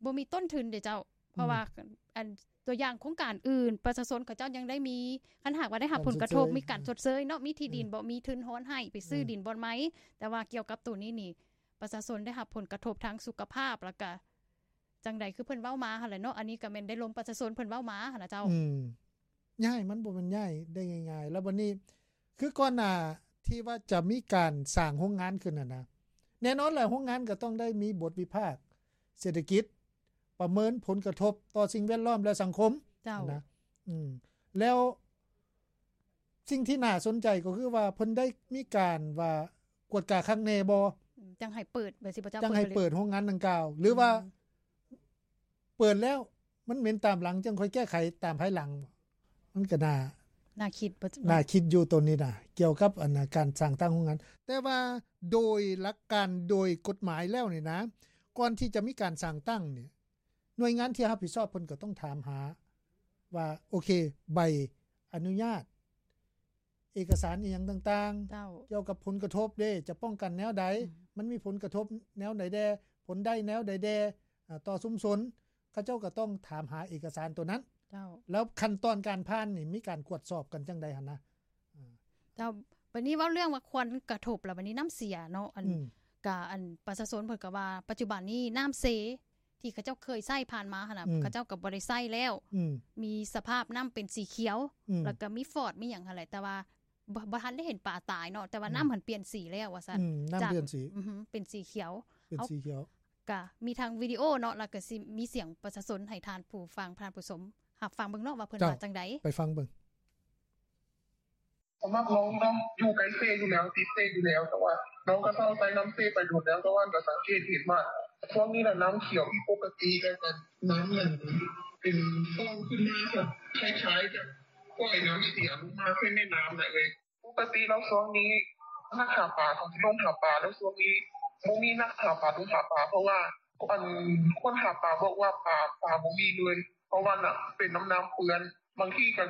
ບໍ່ມີຕົ້ນທຶນເດ້ເຈົ້າ ເພາະວ່າ ອືມ ອັນ ຕົວຢ່າງໂຄງການອື່ນ ປະຊາຊົນເຂົາເຈົ້າຍັງໄດ້ມີ ຄັນຫາກວ່າໄດ້ຮັບຜົນກະທົບ ການຊົດເຊີຍ ມີການຊົດເຊີຍເນາະ ມີທີ່ດິນ ເອີ ບໍ່ ມີທຶນຮອນໃຫ້ໄປຊື້ ເອີ ດິນບ່ອນໃໝ່ ແຕ່ວ່າກ່ຽວກັບໂຕນີ້ນີ້ ປະຊາຊົນໄດ້ຮັບຜົນກະທົບທາງສຸຂະພາບ ແລ້ວກະ ຈັ່ງໃດ ຄືເພິ່ນເວົ້າມາຫັ້ນແຫຼະເນາະ ອັນນີ້ກໍແມ່ນໄດ້ລົມປະຊາຊົນເພິ່ນເວົ້າມາຫັ້ນນະເຈົ້າ ອືມ ຍ້າຍມັນບໍ່ແມ່ນຍ້າຍໄດ້ງ່າຍໆ ແລ້ວບັດນີ້ຄືກ່ອນໜ້າທີ່ວ່າຈະມີການສ້າງໂຮງງານຂຶ້ນຫັ້ນນະ ແນ່ນອນແຫຼະ ໂຮງງານກໍຕ້ອງໄດ້ມີບົດວິພາກເສດຖະກິດ ປະເມີນຜົນກະທົບຕໍ່ສິ່ງແວດລ້ອມ ແລະ ສັງຄົມ ເຈົ້າ ນະ ອືມ ແລ້ວ ສິ່ງທີ່ໜ້າສົນໃຈກໍຄືວ່າເພິ່ນໄດ້ມີການວ່າກວດກາຄັກແນ່ບໍ່ ອືມ ຈັ່ງໃຫ້ເປີດ ແບບຊິບໍ່ເຈົ້າ ຈັ່ງໃຫ້ເປີດໂຮງງານດັ່ງກ່າວ ຫຼືວ່າ ອືມ ເປີດແລ້ວມັນເໝັນຕາມຫຼັງ ຈັ່ງຄ່ອຍແກ້ໄຂຕາມພາຍຫຼັງ ມັນກໍໜ້າ ໜ້າຄິດ ໜ້າຄິດຢູ່ໂຕນີ້ນະ ກ່ຽວກັບອັນນະ ການສ້າງຕັ້ງໂຮງງານ ແຕ່ວ່າໂດຍຫຼັກການ ໂດຍກົດໝາຍແລ້ວນີ້ນະ ກ່ອນທີ່ຈະມີການສ້າງຕັ້ງນີ້ ໜ່ວຍງານທີ່ຮັບຜິດຊອບເພິ່ນກໍຕ້ອງຖາມຫາວ່າ ໂອເຄ ໃບອະນຸຍາດ ເອກະສານອີ່ຫຍັງຕ່າງໆ ເຈົ້າ ກ່ຽວກັບຜົນກະທົບເດ້ ຈະປ້ອງກັນແນວໃດ ອືມ ມັນມີຜົນກະທົບແນວໃດແດ່ ຜົນໄດ້ແນວໃດແດ່ ອາ ຕໍ່ຊຸມຊົນ ເຂົາເຈົ້າກໍຕ້ອງຖາມຫາເອກະສານໂຕນັ້ນ ເຈົ້າ ແລ້ວຂັ້ນຕອນການຜ່ານນີ້ມີການກວດສອບກັນຈັ່ງໃດຫັ້ນນະ ເຈົ້າ ບັດນີ້ເວົ້າເລື່ອງວ່າຄວັນກະທົບ ແລ້ວບັດນີ້ນ້ຳເສຍເນາະ ອັນ ອືມ ກະ ອັນ ປະຊາຊົນເພິ່ນກໍວ່າ ປັດຈຸບັນນີ້ນ້ຳເຊ ທີ່ເຂົາເຈົ້າເຄີຍໃຊ້ຜ່ານມາຫັ້ນນະ ອືມ ເຂົາເຈົ້າກໍບໍ່ໄດ້ໃຊ້ແລ້ວ ອືມ ມີສະພາບນ້ຳເປັນສີຂຽວ ອືມ ແລ້ວກໍມີຟອດມີຫຍັງຫັ້ນແຫຼະ ແຕ່ວ່າບໍ່ ບໍ່ທັນໄດ້ເຫັນປາຕາຍເນາະ ແຕ່ວ່າ ອືມ ນ້ຳຫັ້ນປ່ຽນສີແລ້ວວ່າຊັ້ນ ອືມ ນ້ຳປ່ຽນສີ ອື ເປັນສີຂຽວ ເປັນສີຂຽວ ກະມີທັງວິດີໂອເນາະ ແລ້ວກໍຊິມີສຽງປະຊາຊົນໃຫ້ທ່ານຜູ້ຟັງ ທ່ານຜູ້ຊົມ ຮັບຟັງເບິ່ງເນາະ ວ່າເພິ່ນ ເຈົ້າ ວ່າຈັ່ງໃດ ໄປຟັງເບິ່ງ. ສຳລັບນ້ອງເນາະ ຢູ່ໃກ້ເຊຢູ່ແລ້ວ ຕິດເຊຢູ່ແລ້ວ ແຕ່ວ່ານ້ອງກໍເຊົາໃຊ້ນ້ຳເຊໄປດົນແລ້ວ ແຕ່ວ່າກໍສັງເກດເຫັນວ່າຊ່ວງນີ້ນະ ນ້ຳຂຽວຜິດປົກກະຕິ ແລ້ວກໍນ້ຳນັ້ນເປັນຟອງຂຶ້ນມາ ແບບຄ້າຍໆກັບປ່ອຍນ້ຳເສຍລົງມາໃສ່ແມ່ນ້ຳນະເອີຍ. ປົກກະຕິແລ້ວຊ່ວງນີ້ນັກຫາປາເຂົາຊິລົງຫາປາ ແລ້ວຊ່ວງນີ້ບໍ່ມີນັກຫາປາລົງຫາປາ ເພາະວ່າ ອັນ ຄົນຫາປາບອກວ່າປາ ປາບໍ່ມີເລີຍ ເພາະວ່ານະ ເປັນນ້ຳ ນ້ຳເປື້ອນ. ບາງທີກ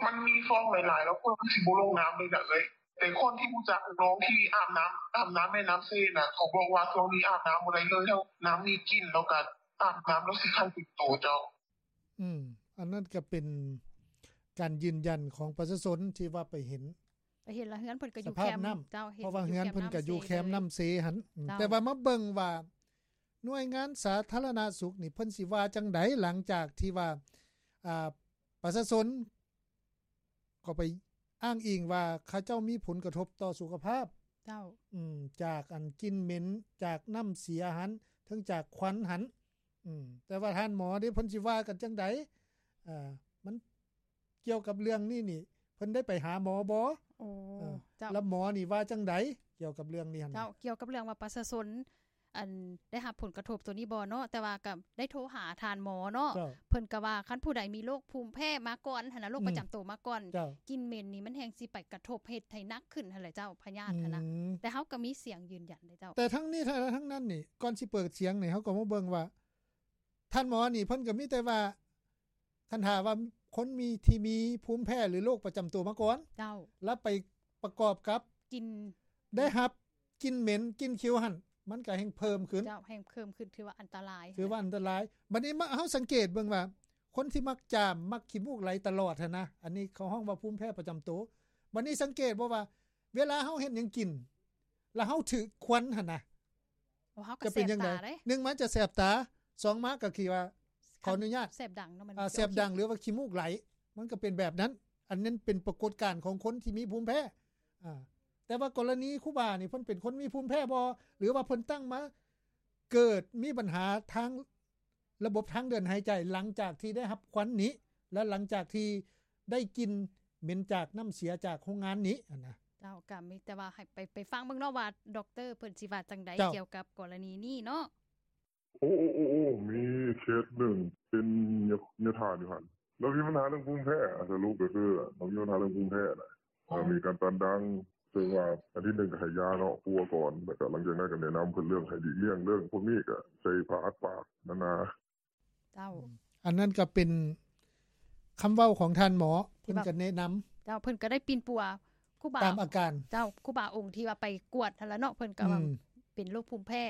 ໍມັນມີຟອງຫຼາຍໆ ແລ້ວຄົນຊິບໍ່ລົງນ້ຳເລີຍນະເອີຍ. ແຕ່ຄົນທີ່ຮູ້ຈັກນ້ອງທີ່ອາບນ້ຳ ອາບນ້ຳແມ່ນ້ຳເຊນະ ເຂົາບອກວ່າຊ່ວງນີ້ອາບນ້ຳບໍ່ໄດ້ເລີຍ ນ້ຳມີກິ່ນ ແລ້ວກໍອາບນ້ຳແລ້ວຊິຄັນເຕັມໂຕເຈົ້າ. ອືມ ອັນນັ້ນກໍເປັນການຢືນຢັນຂອງປະຊາຊົນທີ່ວ່າໄປເຫັນ ໄປເຫັນລະເຮືອນເພິ່ນກໍຢູ່ແຄມ ເຈົ້າ ເພາະວ່າເຮືອນເພິ່ນກໍຢູ່ແຄມນ້ຳເຊຫັ້ນ. ເຈົ້າ ແຕ່ວ່າມາເບິ່ງວ່າໜ່ວຍງານສາທາລະນະສຸກນີ້ເພິ່ນຊິວ່າຈັ່ງໃດ ຫຼັງຈາກທີ່ວ່າ ອ່າ ປະຊາຊົນກໍໄປອ້າງອີງວ່າເຂົາເຈົ້າມີຜົນກະທົບຕໍ່ສຸຂະພາບ ເຈົ້າ ອືມ ຈາກອັນກິ່ນເໝັນ ຈາກນ້ຳເສຍຫັ້ນ ເຖິງຈາກຄວັນຫັ້ນ. ອືມ ແຕ່ວ່າທ່ານໝໍເດ້ ເພິ່ນຊິວ່າກັນຈັ່ງໃດ? ເອີ ມັນ ກ່ຽວກັບເລື່ອງນີ້ນີ້ ເພິ່ນໄດ້ໄປຫາໝໍບໍ່? ໂອ້ ເຈົ້າ ແລ້ວໝໍນີ້ວ່າຈັ່ງໃດກ່ຽວກັບເລື່ອງນີ້ຫັ້ນ? ເຈົ້າ ກ່ຽວກັບເລື່ອງວ່າປະຊາຊົນ ອັນ ໄດ້ຮັບຜົນກະທົບໂຕນີ້ບໍ່ເນາະ ແຕ່ວ່າກໍໄດ້ໂທຫາທ່ານໝໍເນາະ ເຈົ້າ ເພິ່ນກໍວ່າຄັນຜູ້ໃດມີໂລກພູມແພ້ມາກ່ອນຫັ້ນນະ ໂລກ ອືມ ປະຈຳໂຕມາກ່ອນ ເຈົ້າ ກິ່ນເໝັນນີ້ມັນແຮ່ງຊິໄປກະທົບເຮັດໃຫ້ໜັກຂຶ້ນຫັ້ນແຫຼະເຈົ້າ ພະຍາດຫັ້ນນະ. ອືມ ແຕ່ເຮົາກໍມີສຽງຢືນຢັນເດ້ເຈົ້າ. ແຕ່ທັງນີ້ທັງນັ້ນນີ້ ກ່ອນຊິເປີດສຽງນີ້ ເຮົາກໍມາເບິ່ງວ່າ ທ່ານໝໍນີ້ເພິ່ນກໍມີແຕ່ວ່າ ຄັນຖ້າວ່າຄົນມີ ທີ່ມີພູມແພ້ ຫຼື ໂລກປະຈຳຕົວມາກ່ອນ ເຈົ້າ ແລ້ວໄປປະກອບກັບ ກິ່ນ ໄດ້ຮັບກິ່ນເໝັນ ກິ່ນຂິວຫັ້ນ ມັນກໍແຮ່ງເພີ່ມຂຶ້ນ ເຈົ້າ ແຮ່ງເພີ່ມຂຶ້ນ ຖືວ່າອັນຕະລາຍ ຖືວ່າອັນຕະລາຍ. ບັດນີ້ມາ ເຮົາສັງເກດເບິ່ງວ່າ ຄົນທີ່ມັກຈາມ ມັກຂີ້ມູກໄຫຼຕະຫຼອດຫັ້ນນະ ອັນນີ້ເຂົາຮ້ອງວ່າພູມແພ້ປະຈຳໂຕ. ບັດນີ້ສັງເກດບໍ່ວ່າ ເວລາເຮົາເຮັດຫຍັງກິນ ແລ້ວເຮົາຖືກຄວັນຫັ້ນນະ ໂອ້ ເຮົາກໍ ຈະເປັນຈັ່ງໃດ? ໜຶ່ງມາຈະແສບຕາ ສອງມາກໍຄືວ່າ ຂໍອະນຸຍາດ ແສບດັງເນາະ ມັນ ອ່າ ແສບດັງ ຫຼືວ່າຂີ້ມູກໄຫຼ ມັນກໍເປັນແບບນັ້ນ. ອັນນັ້ນເປັນປາກົດການຂອງຄົນທີ່ມີພູມແພ້. ອ່າ ແຕ່ວ່າກໍລະນີຄູບານີ້ ເພິ່ນເປັນຄົນມີພູມແພ້ບໍ່ ຫຼືວ່າເພິ່ນຕັ້ງມາເກີດມີບັນຫາທາງ ລະບົບທາງເດີນຫາຍໃຈ ຫຼັງຈາກທີ່ໄດ້ຮັບຄວັນນີ້ ແລະ ຫຼັງຈາກທີ່ໄດ້ກິ່ນເໝັນຈາກນ້ຳເສຍຈາກໂຮງງານນີ້ຫັ້ນນະ. ເຈົ້າ ກໍມີແຕ່ວ່າໃຫ້ໄປ ໄປຟັງເບິ່ງເນາະວ່າ ດັອກເຕີເພິ່ນຊິວ່າຈັ່ງໃດ ເຈົ້າ ກ່ຽວກັບກໍລະນີນີ້ເນາະ. ໂອ້ ໂອ້ ໂອ້ ໂອ້ ມີເຄສໜຶ່ງເປັນຍາ ຍາທ່ານຢູ່ຫັ້ນ ລາວມີບັນຫາເລື່ອງພູມແພ້ ສະຫຼຸບກໍຄືລາວມີບັນຫາເລື່ອງພູມແພ້ນະ. ເອີ ມີການຕັນດັງ ເຊິ່ງວ່າອາທິດໜຶ່ງກໍໃຫ້ຢາເນາະ ປົວກ່ອນ ແລ້ວກໍຫຼັງຈາກນັ້ນກໍແນະນຳເພິ່ນເລື່ອງໃຫ້ຫຼີກລ່ຽງເລື່ອງພວກນີ້ ກໍໃສ່ຜ້າອັດປາກນານາ. ເຈົ້າ ອືມ ອັນນັ້ນກໍເປັນຄຳເວົ້າຂອງທ່ານໝໍ ເພິ່ນກໍແນະນຳ. ເຈົ້າ ເພິ່ນກໍໄດ້ປິ່ນປົວຄູບາ ຕາມອາການ ເຈົ້າ ຄູບາອົງທີ່ວ່າໄປກວດຫັ້ນລະເນາະ ເພິ່ນກໍວ່າ ອືມ ເປັນໂລກພູມແພ້.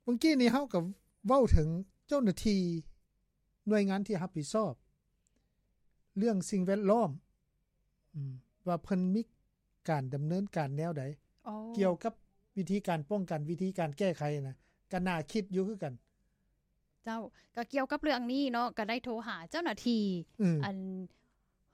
ເມື່ອກີ້ນີ້ເຮົາກໍເວົ້າເຖິງເຈົ້າໜ້າທີ່ໜ່ວຍງານທີ່ຮັບຜິດຊອບເລື່ອງສິ່ງແວດລ້ອມ ອືມ ວ່າເພິ່ນມີການດຳເນີນການແນວໃດ ອໍ ກ່ຽວກັບວິທີການປ້ອງກັນ ວິທີການແກ້ໄຂນະ ກໍໜ້າຄິດຢູ່ຄືກັນ. ເຈົ້າ ກໍກ່ຽວກັບເລື່ອງນີ້ເນາະ ກໍໄດ້ໂທຫາເຈົ້າໜ້າທີ່ ອືມ ອັນ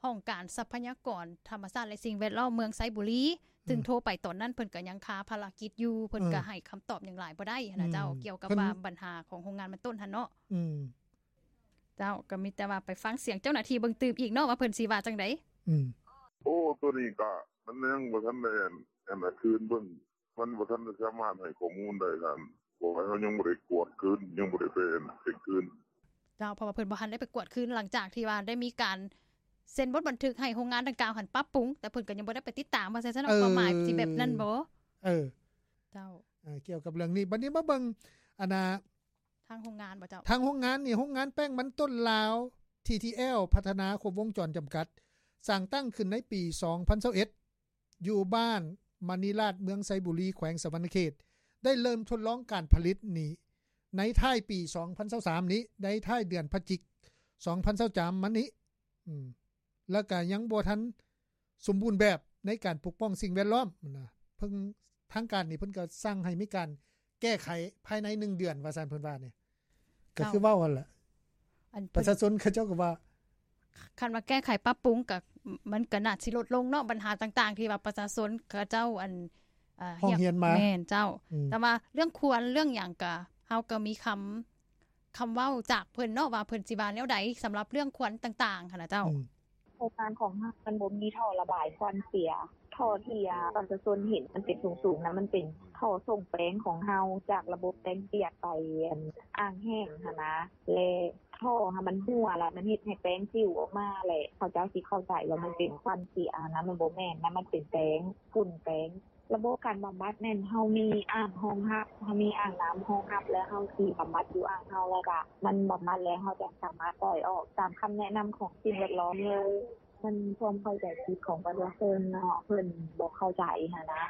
ຫ້ອງການຊັບພະຍາກອນທຳມະຊາດ ແລະ ສິ່ງແວດລ້ອມເມືອງໄຊບູລີ ອືມ ຊຶ່ງໂທໄປຕອນນັ້ນເພິ່ນກໍຍັງຄາພາລະກິດຢູ່ ເພິ່ນ ເອີ ກໍໃຫ້ຄຳຕອບຫຍັງຫຼາຍບໍ່ໄດ້ຫັ້ນນະ ອືມ ເຈົ້າ ກ່ຽວກັບ ເພິ່ນ ວ່າບັນຫາຂອງໂຮງງານມັນຕົ້ນຫັ້ນເນາະ. ອືມ ເຈົ້າ ກໍມີແຕ່ວ່າໄປຟັງສຽງເຈົ້າໜ້າທີ່ເບິ່ງຕື່ມອີກເນາະ ວ່າເພິ່ນຊິວ່າຈັ່ງໃດ. ອືມ ໂອ້ ໂຕນີ້ກໍມັນຍັງບໍ່ທັນໄດ້ ອັນ ອັນ ຄືນເບິ່ງ ມັນບໍ່ທັນໄດ້ສາມາດໃຫ້ຂໍ້ມູນໄດ້ ທ່ານ ເພາະວ່າເຮົາຍັງບໍ່ໄດ້ກວດຄືນ ຍັງບໍ່ໄດ້ໄປເຊັກຄືນ. ເຈົ້າ ເພາະວ່າເພິ່ນບໍ່ທັນໄດ້ໄປກວດຄືນ ຫຼັງຈາກທີ່ວ່າໄດ້ມີການເຊັນບົດບັນທຶກໃຫ້ໂຮງງານດັ່ງກ່າວຫັ້ນປັບປຸງ ແຕ່ເພິ່ນກໍຍັງບໍ່ໄດ້ໄປຕິດຕາມ ວ່າຊັ້ນເນາະ. ເອີ ຄວາມໝາຍຊິແບບນັ້ນບໍ່? ເອີ ເຈົ້າ ເອີ ກ່ຽວກັບເລື່ອງນີ້ ບັດນີ້ມາເບິ່ງ ອັນນ່າ ທາງໂຮງງານບໍ່ເຈົ້າ? ທາງໂຮງງານນີ້ ໂຮງງານແປ້ງມັນຕົ້ນລາວ ທີທີແອລ ພັດທະນາຄົບວົງຈອນຈຳກັດ ສ້າງຕັ້ງຂຶ້ນໃນປີສອງພັນຊາວເອັດ ຢູ່ບ້ານມະນີລາດ ເມືອງໄຊບູລີ ແຂວງສະຫວັນນະເຂດ ໄດ້ເລີ່ມທົດລອງການຜະລິດນີ້ໃນທ້າຍປີສອງພັນຊາວສາມນີ້ ໃນທ້າຍເດືອນພະຈິກສອງພັນຊາວສາມມານີ້ ອືມ ແລ້ວກະຍັງບໍ່ທັນສົມບູນແບບໃນການປົກປ້ອງສິ່ງແວດລ້ອມນະ. ເພິ່ນ ທາງການນີ້ເພິ່ນກໍສັ່ງໃຫ້ມີການແກ້ໄຂພາຍໃນໜຶ່ງເດືອນ ວ່າຊັ້ນ ເພິ່ນວ່ານີ້ ກໍຄືເວົ້າຫັ້ນແຫຼະ ອັນ ປະຊາຊົນເຂົາເຈົ້າກໍວ່າ ຄັນວ່າແກ້ໄຂປັບປຸງກໍ ມັນກໍໜ້າຊິລົດລົງເນາະ ບັນຫາຕ່າງໆ ທີ່ວ່າປະຊາຊົນເຂົາເຈົ້າ ອັນ ເອີ ຮ້ອງຮຽນມາ. ແມ່ນເຈົ້າ ອືມ ແຕ່ວ່າເລື່ອງຄວັນເລື່ອງຫຍັງກໍ ເຮົາກໍມີຄຳ ຄຳເວົ້າຈາກເພິ່ນເນາະ ວ່າເພິ່ນຊິວ່າແນວໃດສຳລັບເລື່ອງຄວັນຕ່າງໆ ຫັ້ນນະເຈົ້າ. ອືມ ໂຄງການຂອງເຮົາມັນບໍ່ມີທໍ່ລະບາຍຄວັນເສຍ. ທໍ່ທີ່ປະຊາຊົນເຫັນມັນເປັນສູງໆນະ ມັນເປັນທໍ່ສົ່ງແປ້ງຂອງເຮົາ ຈາກລະບົບແປ້ງປຽກໄປອ່າງແຫ້ງຫັ້ນນະ ແລະ ທໍ່ຫັ້ນມັນຮົ່ວ ແລະ ມັນເຮັດໃຫ້ແປ້ງປິວອອກມາ ແລະ ເຂົາເຈົ້າຊິເຂົ້າໃຈວ່າມັນເປັນຄວັນເສຍຫັ້ນນະ. ມັນບໍ່ແມ່ນນະ ມັນເປັນແປ້ງ, ຝຸ່ນແປ້ງ. ລະບົບການບຳບັດແມ່ນເຮົາມີອ່າງຮອງຮັບ, ເຮົາມີອ່າງນ້ຳຮອງຮັບ ແລ້ວເຮົາຊິບຳບັດຢູ່ອ່າງເຮົາ ແລ້ວກະມັນບຳບັດແລ້ວ ເຮົາຈະສາມາດປ່ອຍອອກຕາມຄຳແນະນຳຂອງສິ່ງແວດລ້ອມເລີຍ. ມັນຄວາມເຂົ້າໃຈຜິດຂອງປະຊາຊົນເນາະ, ເພິ່ນບໍ່ເຂົ້າໃຈຫັ້ນນະ.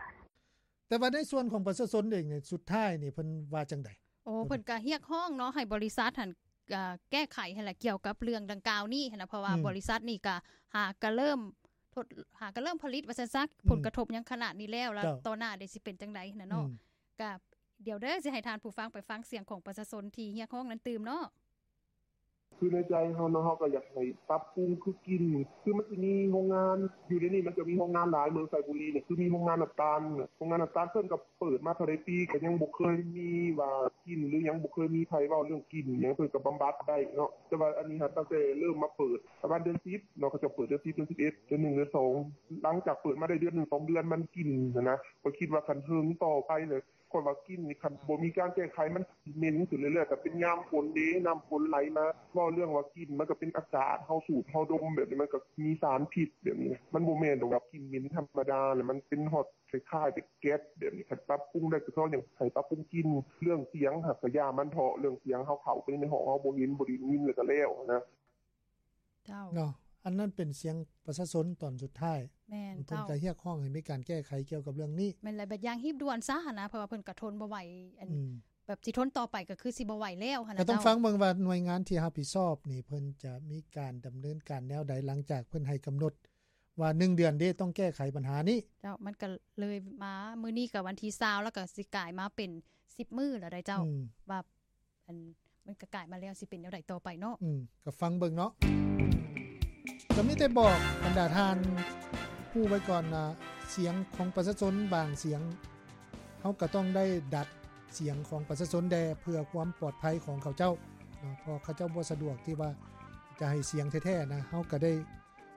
ແຕ່ວ່າໃນສ່ວນຂອງປະຊາຊົນເອງນີ້ ສຸດທ້າຍນີ້ເພິ່ນວ່າຈັ່ງໃດ? ໂອ້ ເພິ່ນກະຮຽກຮ້ອງເນາະ ໃຫ້ບໍລິສັດຫັ້ນ ອ່າ ແກ້ໄຂຫັ້ນແຫຼະ ກ່ຽວກັບເລື່ອງດັ່ງກ່າວນີ້ຫັ້ນນະ ເພາະວ່າ ອືມ ບໍລິສັດນີ້ກະຫາກະເລີ່ມ ທົດ ຫາກະເລີ່ມຜະລິດວ່າຊັ້ນຊະ ອືມ ຜົນກະທົບຫຍັງຂະໜາດນີ້ແລ້ວ ແລ້ວ ເຈົ້າ ຕໍ່ໜ້າເດຊິເປັນຈັ່ງໃດຫັ້ນນະເນາະ. ອືມ ກະດຽວເດີ ຊິໃຫ້ທ່ານຜູ້ຟັງໄປຟັງສຽງຂອງປະຊາຊົນທີ່ຮຽກຮ້ອງນັ້ນຕື່ມເນາະ. ຄືໃນໃຈເຮົາເນາະ ເຮົາກໍຢາກໃຫ້ປັບປຸງຄືກິ່ນ ຄືມັນຊິມີໂຮງງານ ຢູ່ໃນນີ້ມັນຈະມີໂຮງງານຫຼາຍ ເມືອງໄຊບູລີນີ້ ຄືມີໂຮງງານນ້ຳຕານ ໂຮງງານນ້ຳຕານເພິ່ນກໍເປີດມາເທົ່າໃດປີ ກໍຍັງບໍ່ເຄີຍມີວ່າກິ່ນ ຫຼື ຍັງບໍ່ເຄີຍມີໃຜເວົ້າເລື່ອງກິ່ນຫຍັງ ເພິ່ນກໍບຳບັດໄດ້ເນາະ. ແຕ່ວ່າອັນນີ້ຫາກຕັ້ງແຕ່ເລີ່ມມາເປີດປະມານເດືອນສິບເນາະ ເຂົາເຈົ້າເປີດເດືອນສິບ ເດືອນສິບເອັດ ເດືອນໜຶ່ງ ເດືອນສອງ ຫຼັງຈາກເປີດມາໄດ້ເດືອນໜຶ່ງ ສອງເດືອນ ມັນກິ່ນຫັ້ນນະ ຂ້ອຍຄິດວ່າຄັນເຖິງຕໍ່ໄປເລີຍ ຂ້ອຍວ່າກິ່ນນີ້ ຄັນບໍ່ມີການແກ້ໄຂ ມັນຊິເໝັນຂຶ້ນເລື້ອຍໆ ແຕ່ເປັນຍາມຝົນເດ້ ນ້ຳຝົນໄຫຼມາ ເວົ້າເລື່ອງວ່າກິ່ນ ມັນກໍເປັນອາກາດ ເຮົາສູດ ເຮົາດົມແບບນີ້ ມັນກໍມີສານພິດແບບນີ້ ມັນບໍ່ແມ່ນດອກວ່າກິ່ນເໝັນທຳມະດາ ແລ້ວມັນເປັນຮອດຄ້າຍໆແບບແກັດແບບນີ້. ຄັນປັບປຸງໄດ້ກໍຂໍຢາກໃຫ້ປັບປຸງກິ່ນ. ເລື່ອງສຽງຫາກກະຢ່າມັນເຖາະ ເລື່ອງສຽງເຮົາເຂົ້າໄປໃນຫ້ອງ ເຮົາບໍ່ເຫັນ ບໍ່ໄດ້ຍິນ ແລ້ວກໍແລ້ວນະ. ເຈົ້າ ເນາະ ອັນນັ້ນເປັນສຽງປະຊາຊົນຕອນສຸດທ້າຍ. ແມ່ນ ເພິ່ນ ເຈົ້າ ກໍຮຽກຮ້ອງໃຫ້ມີການແກ້ໄຂກ່ຽວກັບເລື່ອງນີ້. ແມ່ນ ແລະ ແບບຢ່າງຮີບດ່ວນຊະຫັ້ນນະ ເພາະວ່າເພິ່ນກໍທົນບໍ່ໄຫວ ອັນ ອືມ ແບບຊິທົນຕໍ່ໄປກໍຄືຊິບໍ່ໄຫວແລ້ວຫັ້ນນະ. ກໍຕ້ອງ ເຈົ້າ ຟັງເບິ່ງວ່າໜ່ວຍງານທີ່ຮັບຜິດຊອບນີ້ ເພິ່ນຈະມີການດຳເນີນການແນວໃດ ຫຼັງຈາກເພິ່ນໃຫ້ກຳນົດວ່າໜຶ່ງເດືອນເດ້ ຕ້ອງແກ້ໄຂບັນຫານີ້. ເຈົ້າ ມັນກໍເລີຍມາ ມື້ນີ້ກໍວັນທີຊາວ ແລ້ວກໍຊິກາຍມາເປັນສິບມື້ແລ້ວໃດ໋ ເຈົ້າ ອືມ ວ່າ ອັນ ມັນກະກາຍມາແລ້ວ ຊິເປັນແນວໃດຕໍ່ໄປເນາະ. ອືມ ກໍຟັງເບິ່ງເນາະ. ກໍມີແຕ່ບອກບັນດາທ່ານຮູ້ໄວ້ກ່ອນວ່າ ສຽງຂອງປະຊາຊົນບາງສຽງ ເຮົາກໍຕ້ອງໄດ້ດັດສຽງຂອງປະຊາຊົນແດ່ ເພື່ອຄວາມປອດໄພຂອງເຂົາເຈົ້າເນາະ ເພາະເຂົາເຈົ້າບໍ່ສະດວກທີ່ວ່າຈະໃຫ້ສຽງແທ້ໆນະ. ເຮົາກໍໄດ້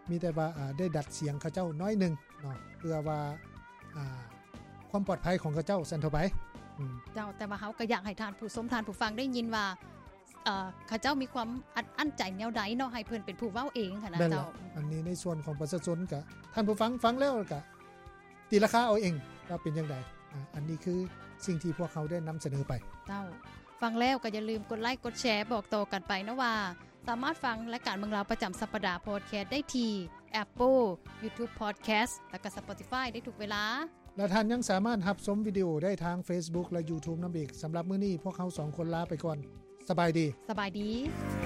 ມີແຕ່ວ່າ ອ່າ ໄດ້ດັດສຽງເຂົາເຈົ້າໜ້ອຍໜຶ່ງເນາະ ເພື່ອວ່າ ອ່າ ຄວາມປອດໄພຂອງເຂົາເຈົ້າ ຊັ້ນເທົ່າໄປ. ອືມ ເຈົ້າ ແຕ່ວ່າເຮົາກໍຢາກໃຫ້ທ່ານຜູ້ຊົມ ທ່ານຜູ້ຟັງໄດ້ຍິນວ່າ ເອີ ເຂົາເຈົ້າມີຄວາມອັດອັ້ນໃຈແນວໃດເນາະ ໃຫ້ເພິ່ນເປັນຜູ້ເວົ້າເອງຫັ້ນນະ. ແມ່ນລະ ເຈົ້າ ອັນນີ້ໃນສ່ວນຂອງປະຊາຊົນ ກະທ່ານຜູ້ຟັງຟັງແລ້ວ ກະ ຕີລາຄາເອົາເອງວ່າເປັນຈັ່ງໃດ. ອາ ອັນນີ້ຄືສິ່ງທີ່ພວກເຮົາໄດ້ນຳສະເໜີໄປ. ເຈົ້າ ຟັງແລ້ວກໍຢ່າລືມກົດໄລກົດແຊ ບອກຕໍ່ກັນໄປເນາະວ່າ ສາມາດຟັງລາຍການເມືອງລາວປະຈຳສັບປະດາພອດແຄສໄດ້ທີ່ Apple, YouTube Podcast ແລະກະ Spotify ໄດ້ທຸກເວລາ. ແລະທ່ານຍັງສາມາດຮັບຊົມວິດີໂອໄດ້ທາງ Facebook ແລະ YouTube ນຳອີກ. ສຳລັບມື້ນີ້ພວກເຮົາສອງຄົນລາໄປກ່ອນ. ສະບາຍດີ. ສະບາຍດີ.